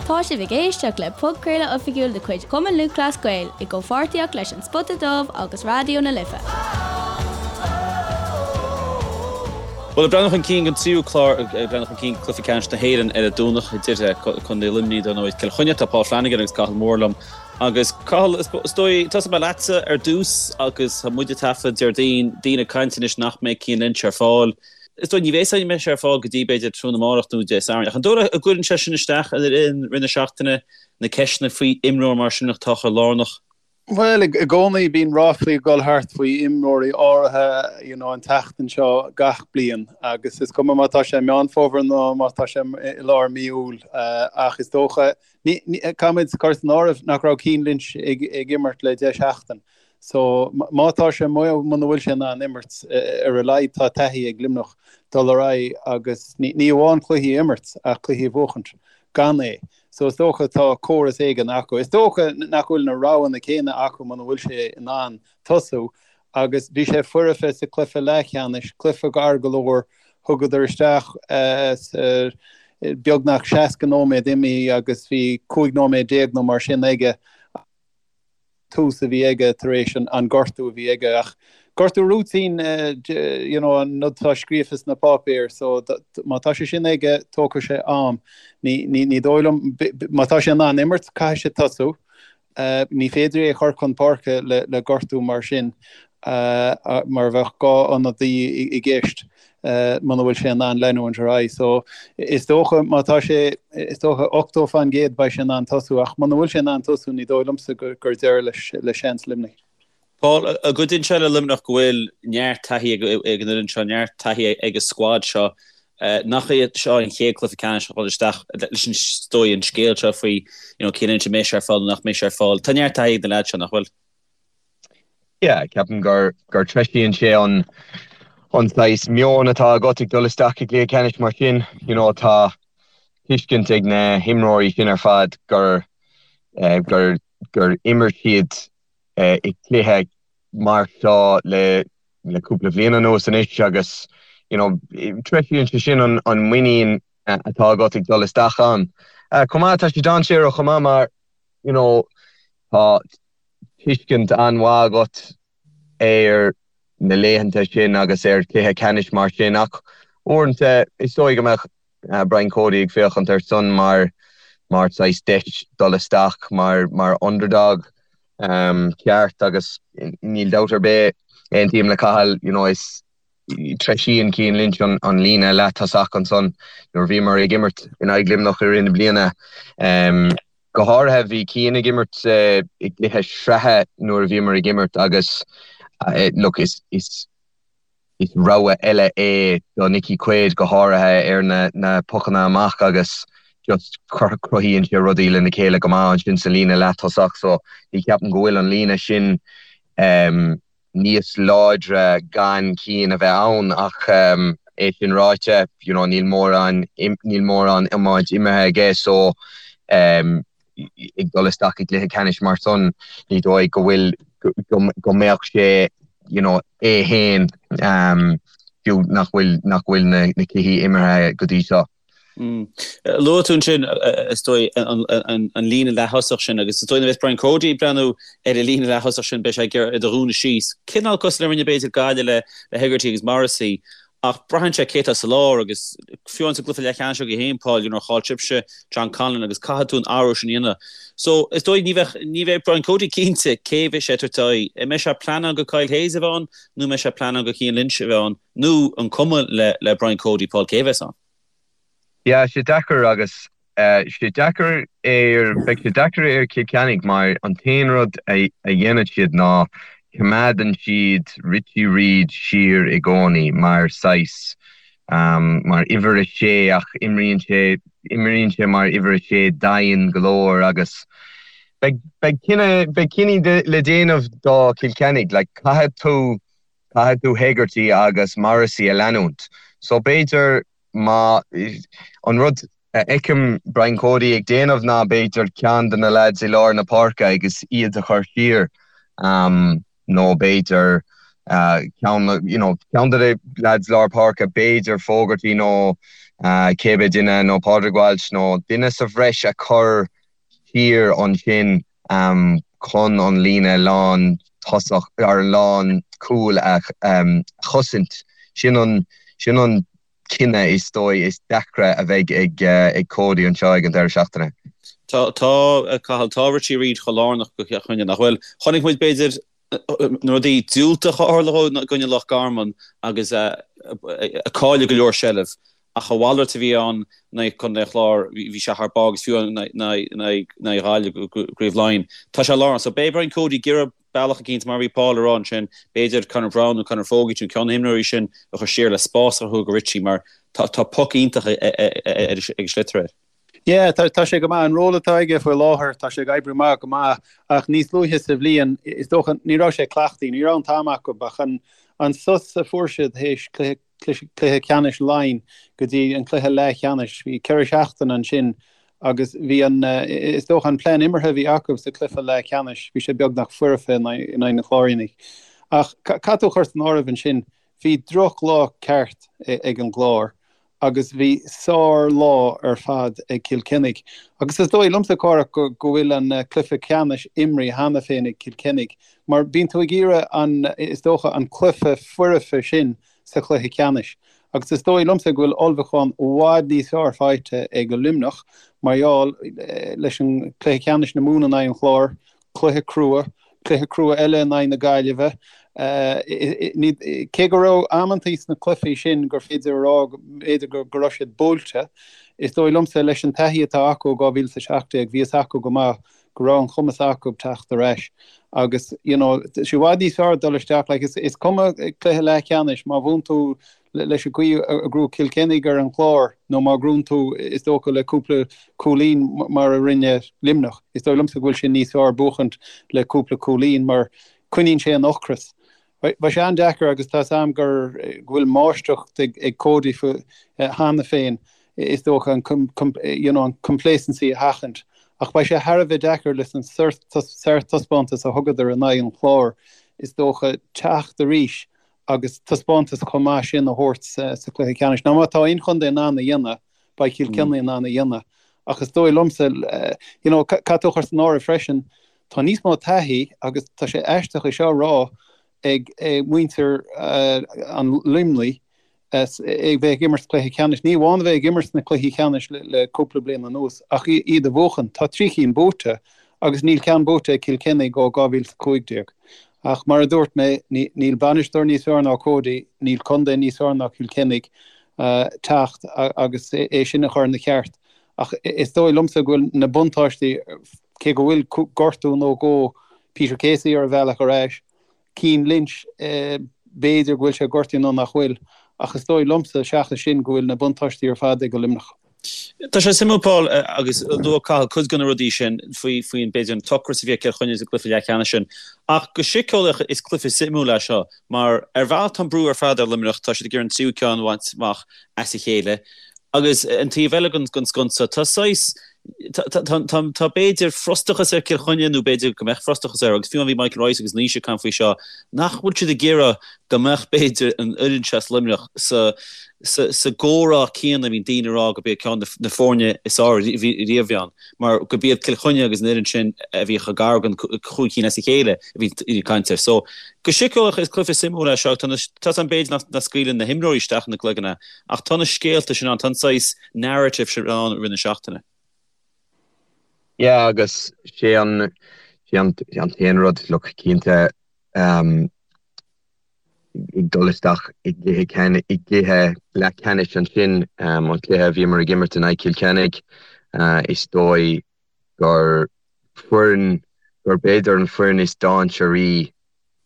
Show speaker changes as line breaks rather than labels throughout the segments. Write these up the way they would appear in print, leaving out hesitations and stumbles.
Tá sibh ag éisteacht le podchraoladh oifigiúil de chuid Chumann Lúthchleas Gael i gcomhpháirtíocht leis An Spota Dubh agus Raidió na Life.
Bhuel, ag breathnú chun cinn don tríú clár, ag breathnú chun cinn go Cluiche Ceannais na hÉireann ar an Domhnach idir Contae Luimnigh, dar ndóigh, Cill Chainnigh. Tá Paul Flanagan agus Cathal Moore liom. Agus Cathal, is dóigh, tosóidh mé leatsa ar dtús agus tá muid ag taifead Déardaoin, daoine ag caint anois nach mbeidh Cian Lynch ar fáil. Is dóigh ní bheidh sé mbeidh sé ar fáil go dtí b'fhéidir tráthnóna amárach nó Dé Sathairn. Ach an dóigh leat go gcuireann sé sin isteach ar an rith na seachtaine, na ceisteanna faoi imreoir mar sin atá chomh lárnach?
Bhuel, i gcónaí bíonn ráflaí ag dul thart faoi imreoirí áirithe you know an tseachtain seo gach bliain agus is cuma má tá sé i Meán Fómhair nó má tá sé i lár mí Iúil ach is dócha, caithfimid cur san áireamh nach raibh Cian Lynch ag imirt le 10 seachtain so má tá sé muna bhfuil sé in ann imirt ar a laghad tá taithí ag Luimneach dul ar aghaidh agus ní amháin cluichí a imirt ach cluichí a bhuachaint gan é. So is dócha tá córas éigin acu. Is dócha nach bhfuil na roghanna céanna acu muna bhfuil sé in ann tosú agus bhí sé foirfe sa cluiche leathcheannais, cluiche gar go leor, thugadar isteach beagnach 60 nóiméad imithe agus bhí 15 nóiméad nó mar sin aige. tús a bhí aige tar éis an gortú a bhí aige ach gortú routine you know an rud atá scríofa sna páipéir so má tá sé sin aige tógfaidh sé am. Ní ní ní dóigh liom má tá sé in ann imirt caithfidh sé tosú. Ní féidir é a chur chun páirce le le gortú mar sin mar bheadh 2 ionadaí i gceist. muna bhfuil sé in ann leanúint ar aghaidh. So is dócha má tá sé, is dócha 80% beidh sé in ann tosú ach muna bhfuil sé in ann tosú ní dóigh liomsa gur deireadh leis le seans Luimnigh.
Paul, an gcuidíonn sé le Luimneach go bhfuil neart taithí ag an fhoireann seo, neart taithí ag an scuad seo. Nach é seo an chéad cluiche ceannais a dhul isteach leis an is dóigh an scéal seo faoi you know Cian Lynch an mbeidh sé ar fáil nó nach mbeidh sé ar fáil. Tá neart taithí ag na leaids seo, nach bhfuil?
Yeah, ceapaim gur gur treisíonn sé an an saghas meon atá agat ag dul isteach i gcluiche ceannais mar sin. You know, tá tuiscint ag na himreoirí sin ar fad gur eh, gur gur imir siad eh, i gcluiche mar seo le le cúpla bhliain anuas anois agus you know, treisíonn sé sin an an muinín eh, atá agat ag dul isteach ann. Eh, chomh maith tá sé dainséarach chomh maith mar you know, tá tuiscint an-mhaith agat ar na laethanta sin agus ar chluiche ceannais mar sin ach uaireanta is dóigh go mbeadh Brian Cody ag féachaint air san mar mar saghas deis dul isteach mar mar underdog ceart agus níl dabht ar bith aontaím le Cathal you know is treisíonn Cian Lynch an líne leath-tosach ansan nuair a bhíomar ag imirt in aghaidh Luimneach i rith na bliana. Go háirithe bhí Cian ag imirt i gcluiche sraithe nuair a bhíomar ag imirt agus look is is is rogha eile é do Nicky Quaid go háirithe ar na na pocanna amach agus just cruthaíonn sé rudaí lena chéile go maith ansin sa líne leath-tosach so ní cheapaim go bhfuil an líne sin níos láidre gan Cian a bheith ann ach é sin ráite, you know, níl mórán, níl mórán iomáint imeartha aige so ag dul isteach i gcluiche ceannais mar san, ní dóigh go bhfuil, go mbeadh sé, you know, é féin fiú nach bhfuil, nach bhfuil na cluichí imeartha go dtí seo.
Luaigh tú ansin, is dóigh, an líne leath-thosach sin agus is dóigh nuair a bheas Brian Cody ag breathnú ar an líne leath-thosach sin beidh sé ag iarraidh iad a dhúnadh síos. Cineál cosúil le rinne b'fhéidir Gaillimh le Hegarty agus Morrissey ach braitheann sé cé atá sa lár agus fiú amháin sa gcluiche leathcheannais agaibh féin, Paul, you know, chaill sibhse John Conlon agus caithfidh tú an athrú sin a dhéanamh. So is dóigh ní bheadh, ní bheidh Brian Cody cinnte cé bheidh sé ag tabhairt aghaidh. An mbeidh sé ag pleanáil go Kyle Hayes a bheith ann nó an mbeidh sé ag pleanáil go Cian Lynch a bheith ann? Nó an cuma le le Brian Cody, Paul, cé a bheas ann?
Yeah, sé deacair agus sé deacair ar, beidh sé deacair ar Cill Chainnigh mar an t-aon rud a dhéanann siad ná coimeádann siad Richie Reid siar i gcónaí mar saghas, mar uimhir a sé ach imríonn sé, imríonn sé mar uimhir a sé daingean go leor agus beidh, beidh cinneadh, beidh cinní le déanamh do Chill Chainnigh, like caithfidh tú Caithfidh tú Hegarty agus Morrissey a leanúint. So b'fhéidir má, an rud a fheicim Brian Cody ag déanamh ná b'fhéidir ceann de na lads i lár na páirce agus iad a chur siar nó b'fhéidir ceann, you know, ceann de na lads lár páirce, b'fhéidir Fogarty nó. Cébé duine nó Pádraig Walsh nó duine sa bhreis a chur siar ansin chun an líne lán tosach ar an lán cúil a chosaint. Sin an sin an cinneadh is dóigh is deacra a bheidh ag Cody anseo ag an deireadh seachtaine.
Tá, tá, Cathal, tá Richie Reid chomh lárnach do Chill Chainnigh, nach bhfuil? Chonaic muid, b'fhéidir, na rudaí diúltacha a tharla i gcoinne Loch Garman agus cailleadh go leor seilbh ach a mhalairt a bhí ann in aghaidh Contae an Chláir, bhí sé thar barr agus fiú in aghaidh Ghaillimh i gCraobh Laighean. Tá sé lárnach. So beidh Brian Cody ag iarraidh bealach eicínt, mar a bhí Paul a rá ansin, b'fhéidir Conor Browne nó Conor Fogarty nó ceann de na himreoirí sin a chur siar le spás a chruthú do Richie mar tá poc iontach ag an sliotar air.
Yeah, tá, tá sé go maith. An ról atá aige faoi láthair, tá sé ag oibriú amach go maith ach níos luaithe sa bhliain, is dócha, ní raibh sé cleachtaithe, ní raibh an t-am acu ach an, an sos a fuair siad théis cluiche, cluiche ceannais Laighean go dtí an cluiche leathcheannais, bhí 4 seachtain ansin agus bhí an, is dócha an plean imeartha a bhí acu sa cluiche leathcheannais, bhí sé beagnach foirfe in aghaidh na Cláirínigh. Ach caithfidh tú a chur san áireamh ansin, Bhí drochlá ceart ag an gClár agus bhí sár-lá ar fad ag Cill Chainnigh. Agus is dóigh liomsa, Cárthach, go bhfuil an cluiche ceannais imrithe cheana féin ag Cill Chainnigh mar bíonn tú ag iarraidh an, is dócha, an cluiche foirfe sin sa chluiche ceannais. Agus is dóigh liomsa go bhfuil ullmhúchán i bhfad níos fearr faighte ag Luimneach mar gheall leis an cluiche ceannais na Mumhan in aghaidh an Chláir, cluiche crua, cluiche crua eile in aghaidh na Gaillimhe. Cé go raibh amantaí sna cluichí sin gur féidir a rá b'fhéidir go raibh siad buailte, is dóigh liomsa leis an taithí atá acu ó 2017, bhí fhios acu go maith go raibh an chumas acu teacht ar ais. Agus you know, tá sé i bhfad níos fearr dul isteach, like, is cuma cluiche leathcheannais, má bhuann tú leis an gcaoi a ghnóthaigh Cill Chainnigh ar an Chlár nó má ghnóthaíonn tú, is dócha, le cúpla cúilín mar a rinne Luimneach. Is dóigh liomsa go bhfuil sé níos fearr buachaint le cúpla cúilín mar coinníonn sé an ocras. Beidh sé an-deacair agus tá 's a'm gur go bhfuil máistreacht ag Cody cheana féin, is dócha, an you know an complacency a sheachaint. Ach beidh sé thar a bheith deacair leis an sárthaispeántas a thugadar in aghaidh an Chláir, is dócha, teacht arís agus taispeántas chomh maith sin a thabhairt sa chluiche ceannais. Now má tá aon chontae in ann a dhéanamh, beidh Cill Chainnigh in ann a dhéanamh. Ach is dóigh liomsa, you know, caithfidh tú a chur san áireamh freisin, tá níos mó taithí agus tá sé aisteach é seo a rá ag muintir an Luimnigh ag bheith ag imirt cluiche ceannais. Ní amháin a bheith ag imirt sna cluichí ceannais le cúpla bliain anuas ach iad a bhuachan. Tá 3 chinn buaite agus níl ceann buaite ag Cill Chainnigh ó 2015. Ach mar a dúirt mé, níl bainisteoir níos fearr ná Cody, níl contae níos fearr ná Cill Chainnigh teacht agus é sin a chur ina cheart. Ach is dóigh liomsa go bhfuil na buntáistí, cé go bhfuil gortú nó dhó Peter Casey ar a bhealach ar ais, Cian Lynch, b'fhéidir go bhfuil sé gortaithe nó nach bhfuil, ach is dóigh liomsa, seachas sin, go bhfuil na buntáistí ar fad ag Luimneach.
Tá sé suimiúil, Paul, agus luaigh Cathal cuid de na rudaí sin faoi, faoin, b'fhéidir, an t-ocras a bhí ag Cill Chainnigh sa gcluiche leathcheannais sin. Ach go síceolaíoch, is cluiche suimiúil é seo, mar ar bhealach tá an brú ar fad ar Luimneach, tá siad ag iarraidh an tríú ceann a bhaint amach as a chéile. Agus an taobh eile den sconsa, tá saghas, tá b'fhéidir frustrachas ar Cill Chainnigh nó b'fhéidir go mbeadh frustrachas air agus fiú amháin bhí Michael Rice agus Naoise ag caint faoi seo, nach bhfuil siad ag iarraidh go mbeadh b'fhéidir an fhoireann seo as Luimneach sa sa gcomhrá céanna a bhíonn daoine ag rá gurb iad ceann de na foirne is fearr riamh a bhí ann mar gurb iad Cill Chainnigh agus an fhoireann sin a bhí chomh gar don chúig cinn as a chéile a bhí ag caint air. So go síceolaíoch is cluiche suimiúil é seo. Tá tá an b'fhéidir nach scaoileann na himreoirí isteach ina gcloigne ach tá na scéalta sin ann, tá an saghas narrative sin ann i rith na seachtaine.
Yeah agus sé an sé an an t-aon rud look cinnte um, ag dul isteach i gcluiche i gcluiche leathcheannais ansin um, an cluiche a bhíomar ag imirt in aghaidh Cill Chainnigh uh, is dóigh gur foireann gur b'fhéidir an foireann is dainséaraí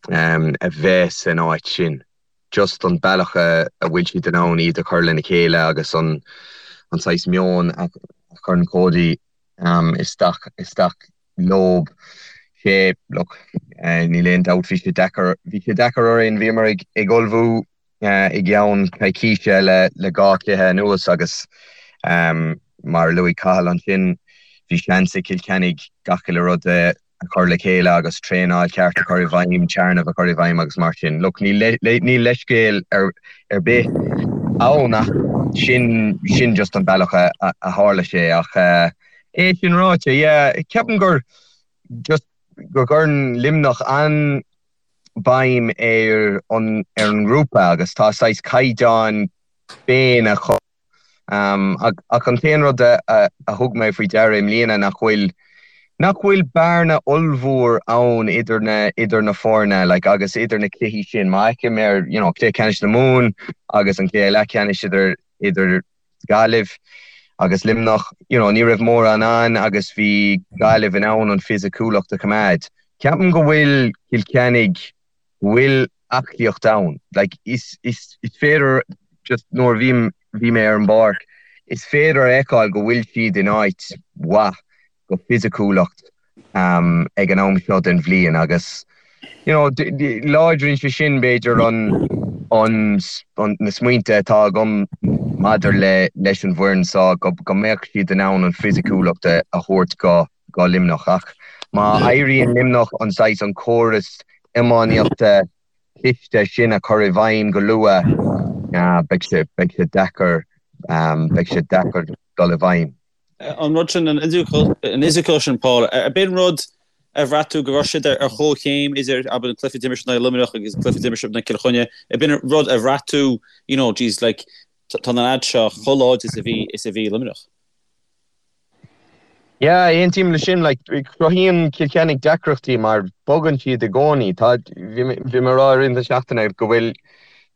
um, a bheith san áit sin. Just an bealach a a bhfuil siad in ann iad a chur lena chéile agus an an saghas meon a chuireann Cody um, isteach isteach leob. Sé, look, níl aon dabht, bhí sé deacair, bhí sé deacair orainn, bhíomar ag, ag ullmhú i gceann coicíse le, le dhá chluiche anuas agus mar a luaigh Cathal ansin, bhí seans ag Cill Chainnigh gach uile rud a chur le chéile agus traenáil cheart a chur i bhfeidhm, téarnamh a chur i bhfeidhm agus mar sin. Look, níl, níl leithscéal ar, ar bith. ann ach sin sin just an bealach a a tharla sé ach é sin ráite yeah ceapaim gur just go gcuireann Luimneach an-bhéim ar an ar an ngrúpa agus tá saghas caighdeán féin acu Ach an t-aon rud a thug mé faoi deara i mbliana nach bhfuil nach bhfuil bearna ollmhór ann idir na idir na foirne like agus idir na cluichí sin. Má fheicim ar you know cluiche ceannais na Mumhan agus an cluiche leathcheannais idir idir Gaillimh agus Luimneach, you know ní raibh mórán ann agus bhí Gaillimh in ann an fisiciúlacht a choimeád. Ceapaim go bhfuil Cill Chainnigh bhfuil aclaíocht ann. Like, is, is, is féidir, just nuair a bhím, bhí mé ar an bpáirc, is féidir a fheiceáil go bhfuil siad in áit mhaith go fisiciúlacht um, ag an am seo den bhliain agus, you know, láidríonn sé sin b'fhéidir an, an, an, na smaointe atá agam maidir le, leis an bhfoireann seo go, go mbeadh siad in ann an fisiciúlacht a, a thabhairt go, go Luimneach. Ach má éiríonn Luimneach an saghas, an córas iománaíochta cliste sin a chur i bhfeidhm go luath, beidh sé, beidh sé deacair, beidh sé deacair dul i bhfeidhm.
An rud sin, an fhisiciúlacht sin, Paul, ab in rud a bhraith tú go raibh siad ar chomhchéim idir, abair, an cluiche a d'imir siad in aghaidh Luimneach agus an cluiche a d'imir siad in aghaidh Cill Chainnigh, ab in rud a bhraith tú, you know, geez, like, tá na lads seo chomh láidir is a bhí, is a bhí Luimneach?
Yeah, aontaím leis sin. Like, cruthaíonn Cill Chainnigh deacrachtaí mar bogann siad i gcónaí. Tá, bhí mé, bhí mé ag rá i rith na seachtaine go bhfuil,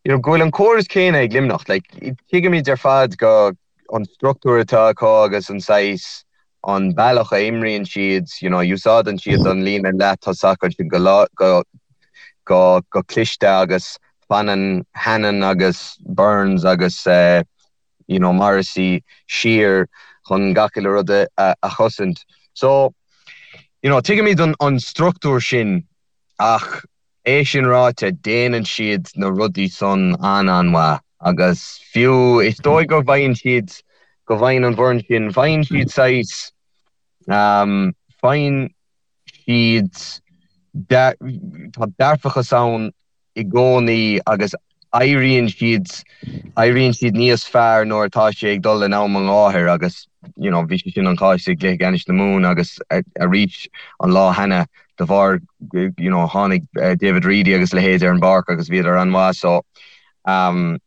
you know, go bhfuil an córas céanna ag Luimneach. Like, tuigimid ar fad go an struchtúr atá acu agus an saghas, an bealach a imríonn siad, you know, úsáideann siad an líne leath-tosach ansin go lá, go, go, go cliste agus fanann Hannon agus Burns agus eh, you know, Morrissey siar chun gach uile rud a, a chosaint. So, you know, tuigimid an, an struchtúr sin ach é sin ráite, déanann siad na rudaí san an-an-mhaith agus fiú is dóigh go bhfaigheann siad, go bhfaigheann an bhfoireann sin, faigheann siad saghas, um, faigheann siad, tá dearfachas ann i gcónaí agus éiríonn siad, éiríonn siad níos fearr nuair atá sé ag dul in am an gháthair agus you know bhí sé sin an cás i gcluiche ceannais na Mumhan agus arís an lá cheana de bharr you know tháinig David Reidy agus a leithéid ar an bpáirc agus bhíodar an-mhaith so um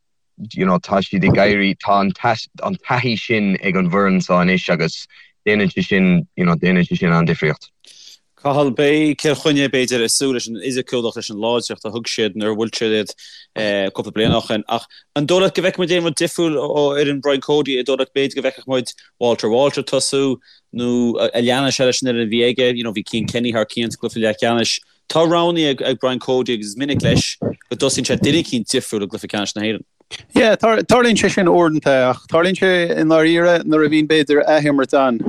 you know, tá siad ag éirí, tá an an taithí sin ag an bhfoireann seo anois agus déanann sé sin, you know, déanann sé sin an-difríocht.
Cathal, beidh Cill Chainnigh, b'fhéidir, ag súil leis an fhisiciúlacht, leis an láidreacht a thug siad nuair a bhuail siad iad cúpla bliain ó shin. Ach an dóigh leat go bhfeicfidh muid aon rud difriúil ó fhoireann Brian Cody? An dóigh leat b'fhéidir go bhfeicfeadh muid Walter Walsh ag tosú nó an leanfaidh sé leis an fhoireann a bhí aige? You know, bhí Cian Kenny thar cionn sa gcluiche leathcheannais. Tá roghanna ag Brian Cody agus is minic leis go dtosaíonn sé duine eicínt difriúil i gcluiche ceannais na hÉireann.
Yeah, tarlaíonn sé sin uaireanta ach tarlaíonn sé i ndáiríre nuair a bhíonn b'fhéidir athimirt ann.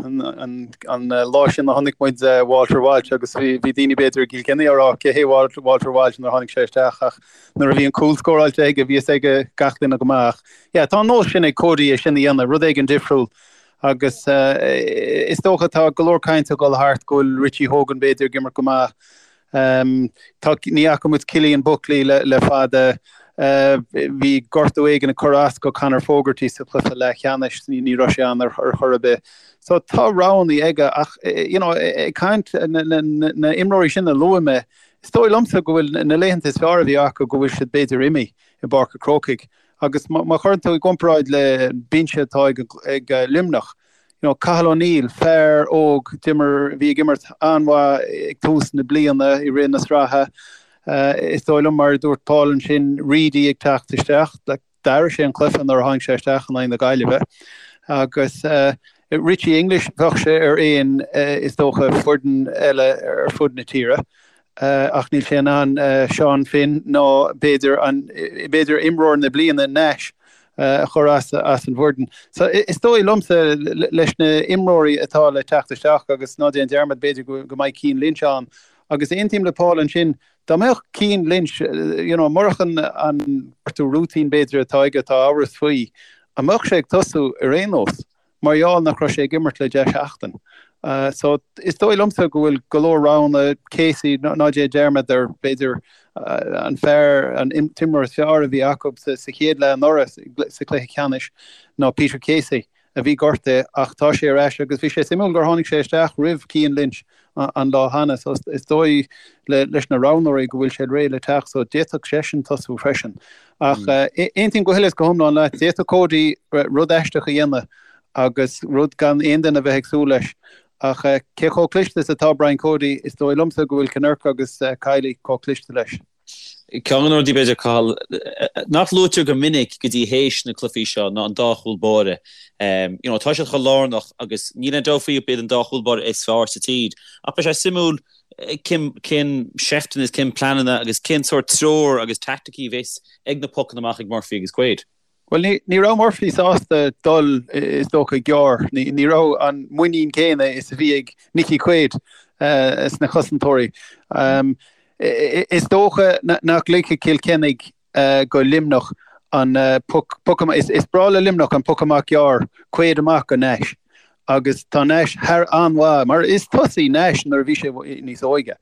An lá sin a chonaic muid Walter Walsh agus bhí daoine b'fhéidir i gCill Chainnigh á rá cé hé Walter Walsh nuair a tháinig sé isteach ach nuair a bhí an cúl scóráilte aige bhí fhios ag gach duine go maith ach yeah, tá an nós sin ag Cody é sin a dhéanamh, rud éigin difriúil. Agus is dócha tá go leor cainte ag dul thart go bhfuil Richie Hogan b'fhéidir ag imirt go maith. Tá, ní fhaca muid Cillian Buckley le, le fada. Bhí gortú éigin ag cur as go Conor Fogarty sa chluiche leathcheannais, ní, ní raibh sé ann ar, ar chor ar bith. So tá roghanna aige ach you know, ag caint na, na, na, na imreoirí sin a luaigh mé, is dóigh liomsa go bhfuil na laethanta is fearr a bhí acu go bhfuil siad b'fhéidir imithe i bPáirc an Chrócaigh. Agus má chuireann tú i gcomparáid le binse atá ag Luimneach, you know, Cathal O'Neill, fear óg, d'imir, bhí ag imirt an-mhaith ag tús na bliana i rith na sraithe. Is dóigh liom, mar a dúirt Paul ansin, Reidy ag teacht isteach, like, d'athraigh sé an cluiche nuair a tháinig sé isteach in aghaidh na Gaillimhe. Agus Richie English, bheadh sé ar aon, is dócha, foireann eile ar fud na tíre. ach níl sé in ann Seán Finn ná b'fhéidir an b'fhéidir imreoir na bliana Nash a chur as as an bhfoireann. So is dóigh liomsa leis na imreoirí atá le teacht isteach agus ná déan dearmad b'fhéidir go go mbeidh Cian Lynch ann agus aontaím le Paul ansin dá mbeadh Cian Lynch you know murach an an gortú rúitín b'fhéidir atá aige atá amhras faoi an mbeadh sé ag tosú ar aon nós? Mar gheall nach raibh sé ag imirt le 10 seachtain. So is dóigh liomsa go bhfuil go leor roghanna, Casey, ná déan dearmad ar, b'fhéidir, an fear, an t-imreoir is fearr a bhí acu sa chéad leath anuraidh sa chluiche ceannais ná Peter Casey a bhí gortaithe ach tá sé ar ais agus bhí sé suimiúil gur tháinig sé isteach roimh Cian Lynch an lá cheana so is dóigh leis na roghnóirí go bhfuil sé réidh le teacht so d'fhéadfadh seisean tosú freisin. Ach aontaím go huile is go hiomlán leat, d'fhéadfadh Cody rud aisteach a dhéanamh agus rud gan aon duine a bheith ag súil leis. Ach cé chomh cliste is atá Brian Cody, is dóigh liomsa go bhfuil Kinnerk agus Kiely chomh cliste leis.
Ceann de na rudaí, b'fhéidir, Cathal, nach luaitear go minic go dtí théis na cluichí seo ná an dá chúl báire. You know, tá siad chomh lárnach agus níl aon dabht faoi gurb iad an dá chúl báire is fearr sa tír. Ach beidh sé suimiúil cén, cén seifteanna is cén pleananna agus cén sórt treoir agus teaicticí a bheas ag na pocanna amach ag Murphy agus Quaid.
Bhuel, ní, ní raibh Murphy sásta dul, is dócha, gearr. Ní, ní raibh an muinín céanna is a bhí ag Nicky Quaid sna cosantóirí. Is dócha nach ligfidh Cill Chainnigh go Luimneach an poc, poc amach, is breá le Luimneach an poc amach gearr, Quaid amach go Nash. Agus tá Nash thar an-mhaith, mar is tosaí Nash nuair a bhí sé níos óige.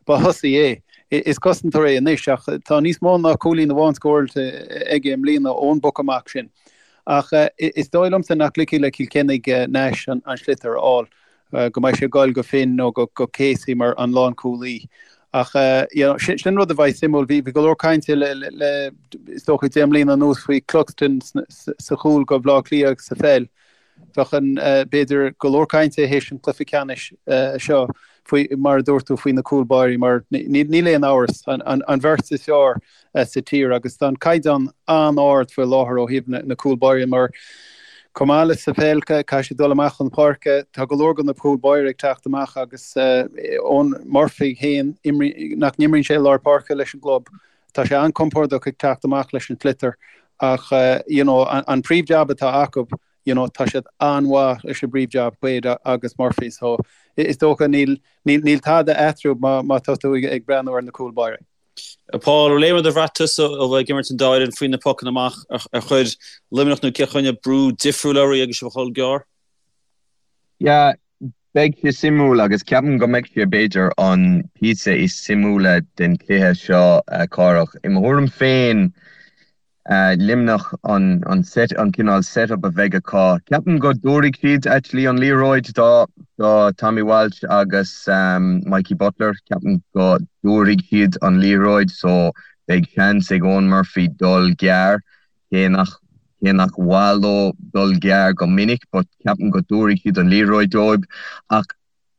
Ba thosaí é. Is cosantóir é anois ach tá níos mó ná cúilín amháin scóráilte aige i mbliana ón bpoc amach sin. Ach is dóigh liomsa nach ligfidh le Cill Chainnigh Nash an sliotar a fháil, go mbeidh sé ag goil go Finn nó go Casey mar an lánchúlaí. Ach you know, sin rud a bheidh suimiúil. Bhí go leor cainte le is dócha 10 mbliana anuas faoi Cluxton sa chúl go Bhaile Átha Cliath sa pheil. Bheadh an, b'fhéidir, go leor cainte théis an chluiche ceannais seo faoi, mar a dúirt tú, faoi na cúl báirí mar níl aon amhras, an bheirt is fearr sa tír agus tá an caighdeán an-ard faoi láthair ó thaobh na cúl báirí mar chomh maith le sa pheil caithfidh siad dul amach chun páirce, tá go leor de na cúl báirí ag teacht amach agus Eoin Murphy féin, nach n-imríonn sé i lár páirce leis an gclub, Tá sé an-compordach ag teacht amach leis an sliotar ach you know an príomh-jab atá acu you know tá siad an-mhaith leis an bpríomh-jab, Quaid agus Murphy so is dócha níl níl tada eatarthu má má tá tú ag breathnú ar na cúl báire.
Paul, an bhfuil aon rud a bhraith tusa ó bheith ag imirt an dá fhoireann faoi na pocanna amach ar chuir Luimneach nó Cill Chainnigh brú difriúil oraibh agus sibh ag dhul gearr?
Yeah, Beidh sé suimiúil agus ceapaim go mbeidh sé b'fhéidir an píosa is suimiúla den chluiche seo, Cárthach. I mo thuairim féin, Luimneach an set, an cineál set-up a bheidh acu. Ceapaim go dtabharfaidh siad actually an liathróid do do Tommy Walsh agus Mikey Butler. Ceapaim go dtabharfaidh siad an liathróid so beidh seans ag Eoin Murphy dul gearr. Cé nach cé nach mhaith leo dul gearr go minic but ceapaim go dtabharfaidh siad an liathróid dóibh ach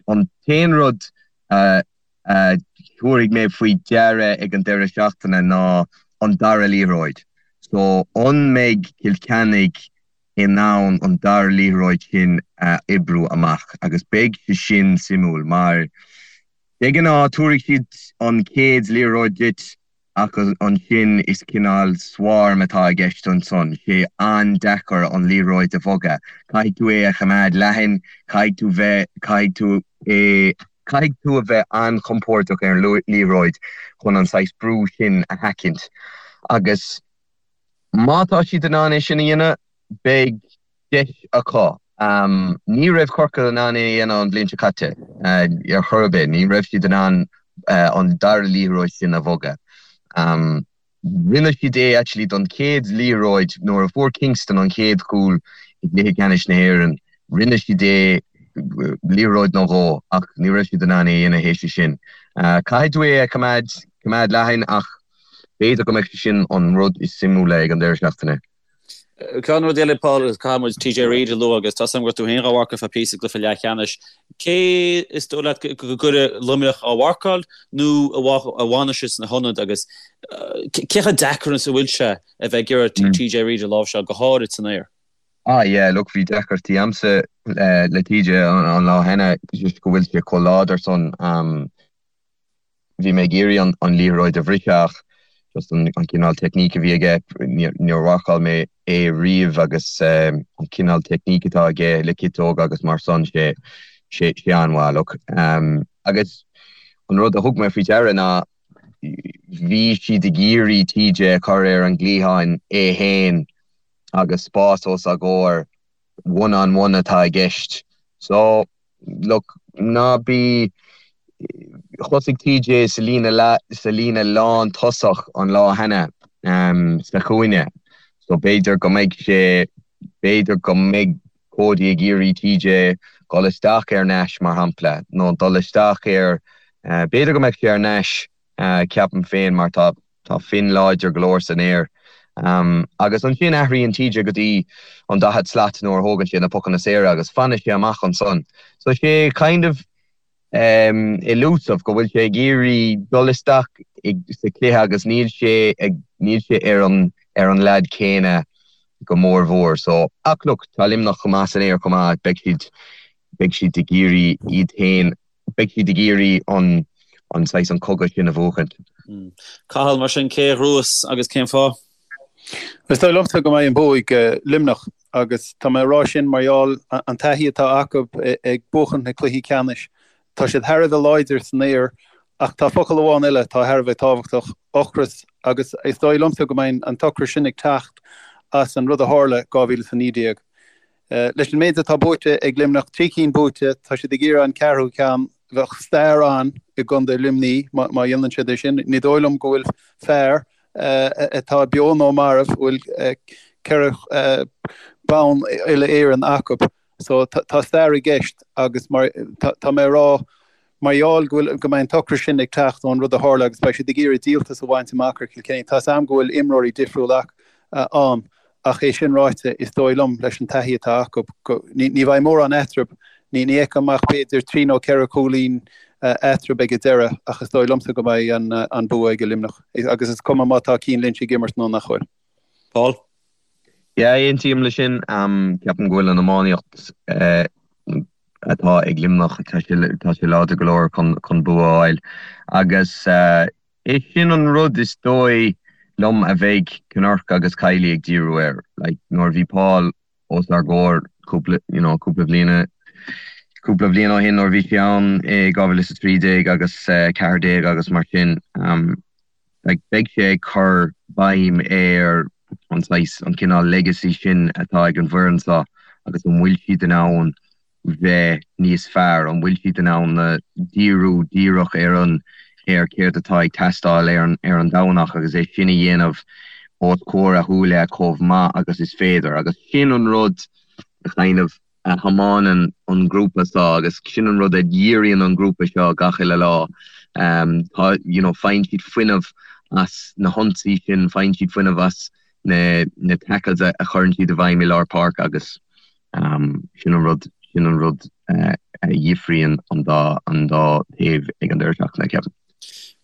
an t-aon rud a a thabharfaidh mé faoi deara ag an deireadh seachtaine ná an dara liathróid. So an mbeidh Cill Chainnigh in ann an dara liathróid sin a oibriú amach agus beidh sé sin suimiúil mar de ghnáth tabharfaidh siad an chéad liathróid duit Ach ansin is cineál swarm atá i gceist ansan. Sé an-deacair an liathróid a bhogadh. Caithfidh tú é a choimeád leathan, caithfidh tú bheith, caithfidh tú é, caithfidh tú a bheith an-chompordach ar an liathróid chun an saghas brú sin a sheachaint. Agus má tá siad in ann é sin a dhéanamh, beidh deis acu. Ní raibh Corcaigh in ann é a dhéanamh an bhliain seo caite ar chor ar bith. Ní raibh siad in ann an dara liathróid sin a bhogadh. Rinne siad é actually don chéad liathróid nuair a fuair Kingston an chéad chúl i gcluiche ceannais na hÉireann. Rinne siad é liathróid nó dhó ach ní raibh siad in ann é a dhéanamh théis sin. Caithfidh tú é a choimeád coimeád leathan ach b'fhéidir go mbeidh sé sin an rud is suimiúla ag an deireadh seachtaine.
Ceann rud eile, Paul, agus caithfidh muid TJ Reid a lua agus tá 's agam go raibh tú féin dhá mharcáil feadh píosa i gcluiche leathcheannais. Cé is dóigh leat go gcuirfidh Luimneach á mharcáil nó a bhfanfaidh sé sna hionad agus cé chomh deacair is a bhfuil sé a bheith ag iarraidh TJ Reid a láimhseáil, go háirid san aer?
Ah yeah, look, bhí deacrachtaí a'msa le TJ an lá cheana just go bhfuil sé chomh láidir san. Bhí mé ag iarraidh an liathróid a bhriseadh ach just an cineál teicníc a bhí aige, níor mharcáil mé é riamh agus an cineál teicníc atá aige le ciotóga agus mar san, sé sé sé an-mhaith, look. Agus an rud a thug mé faoi deara ná bhí siad ag iarraidh TJ a chur ar an gcliathán é fhéin agus spás os a gcomhair. one on one atá i gceist. So, look, ná bí, thosaigh TJ sa líne sa líne lán tosach an lá cheana sa chúinne so b'fhéidir go mbeidh sé, b'fhéidir go mbeidh Cody ag iarraidh TJ dul isteach ar Nash mar shampla nó dul isteach ar, b'fhéidir go mbeadh sé ar Nash ceapaim féin mar tá Tá Finn láidir go leor san aer. Agus ansin athraíonn TJ go dtí an 40 slat nuair a thógann sé na pocanna saora agus fanann sé amach ansan. So sé kind of elusive go bhfuil sé ag iarraidh dul isteach sa chluiche agus níl sé ag níl sé ar an ar an leaid céanna go mór mhór. So ach look tá Luimneach chomh maith san aer chomh maith beidh siad beidh siad ag iarraidh iad féin beidh siad ag iarraidh an an saghas an cogadh sin a bhuachaint.
Cathal, mar sin, cé a ghnóthós agus cén fáth?
Is dóigh liomsa go mbeidh an bua ag Luimneach agus tá mé ag rá sin mar gheall an taithí atá acu ag buachaint na cluichí ceannais. Tá siad thar a bheith láidir san aer ach tá focal amháin eile atá thar a bheith tábhachtach, ocras, agus is dóigh liomsa go mbeidh an t-ocras sin ag teacht as an rud a tharla 2019. Leis an méid atá buaite ag Luimneach, 3 cinn buaite, tá siad ag iarraidh an ceathrú ceann. Bheadh stair ann i gcontae Luimnigh má dhéanann siad é sin. Ní dóigh liom go bhfuil fear atá beo nó marbh a bhfuil 4 bonn uile-Éireann acu. So tá stair i gceist agus mar tá mé ag rá mar gheall go bhfuil go mbeidh an t-ocras sin ag teacht ón rud a tharla agus beidh siad ag iarraidh díoltas a bhaint amach ar Chill Chainnigh. Tá's a'm go bhfuil imreoirí difriúil ann Ach é sin ráite, is dóigh liom, leis an taithí atá acu, go, ní bheidh mórán eatarthu, ní fheicim ach b'fhéidir trí nó 4 chúilín eatarthu ag an deireadh, ach is dóigh liomsa go mbeidh an bua ag Luimneach. Agus is cuma má tá Cian Lynch ag imirt nó nach bhfuil.
Paul?
Yeah, aontaím leis sin. Ceapaim go bhfuil an iománaíocht atá ag Luimneach, tá sé láidir go leor chun bua a fháil. Agus É sin an rud is dóigh liom a bheidh Kinnerk agus Kiely ag díriú air. Like, nuair a bhí Paul os ár gcomhair cúpla, you know, cúpla bhliana, cúpla bhliain ó shin nuair a bhí sé ann i 2013 agus 14 agus mar sin, um, like, beidh sé ag cur béim ar an saghas, an cineál legacy sin atá ag an bhfoireann seo agus an bhfuil siad in ann bheith níos fearr? An bhfuil siad in ann díriú díreach ar an ar céard atá ag teastáil ar an ar an Domhnach agus é sin a dhéanamh os comhair a shúile chomh maith agus is féidir? Agus sin an rud a kind of a thiomáineann an grúpa seo agus sin an rud a dhíríonn an grúpa seo gach uile lá. Tá you know faigheann siad fuinneamh as na hionsaí sin, faigheann siad fuinneamh as na na tackles a chuireann siad i bhfeidhm i lár páirce agus Sin an rud, sin an rud a dhifríonn an dá, an dá thaobh ag an deireadh seachtaine, ceapaim.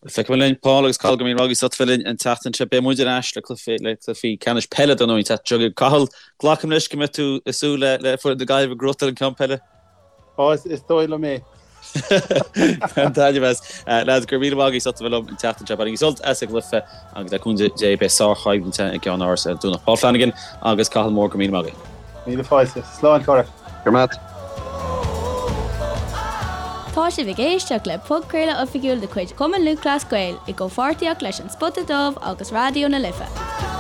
Feicfidh muid linn, Paul agus Cathal, go raibh míle maith agaibh as ucht bheith linn an tseachtain seo. Beidh muid ar ais le cluichí, le cluichí ceannais peile dar ndóigh an tseachtain seo chugainn. Cathal, glacaim leis go mbeidh tú ag súil le, le foireann na Gaillimhe ag gnóthachtáil an ceann peile?
Ó, is dóigh liom é.
Bain taitneamh as. Lads, go raibh míle maith agaibh as ucht a bheith liom an tseachtain seo. Bainigí sult as an gcluiche agus le cúnamh Dé beidh sárchoimhlint i gceann áras ar an Domhnach. Paul Flanagan agus Cathal Moore, go raibh míle maith agaibh.
Míle fáilte. Slán, a chara.
Go raibh maith.
Tá sibh ag éisteacht le podchraoladh oifigiúil de chuid Chumann Lúthchleas Gael i gcomhpháirtíocht leis An Spota Dubh agus Raidió na Life.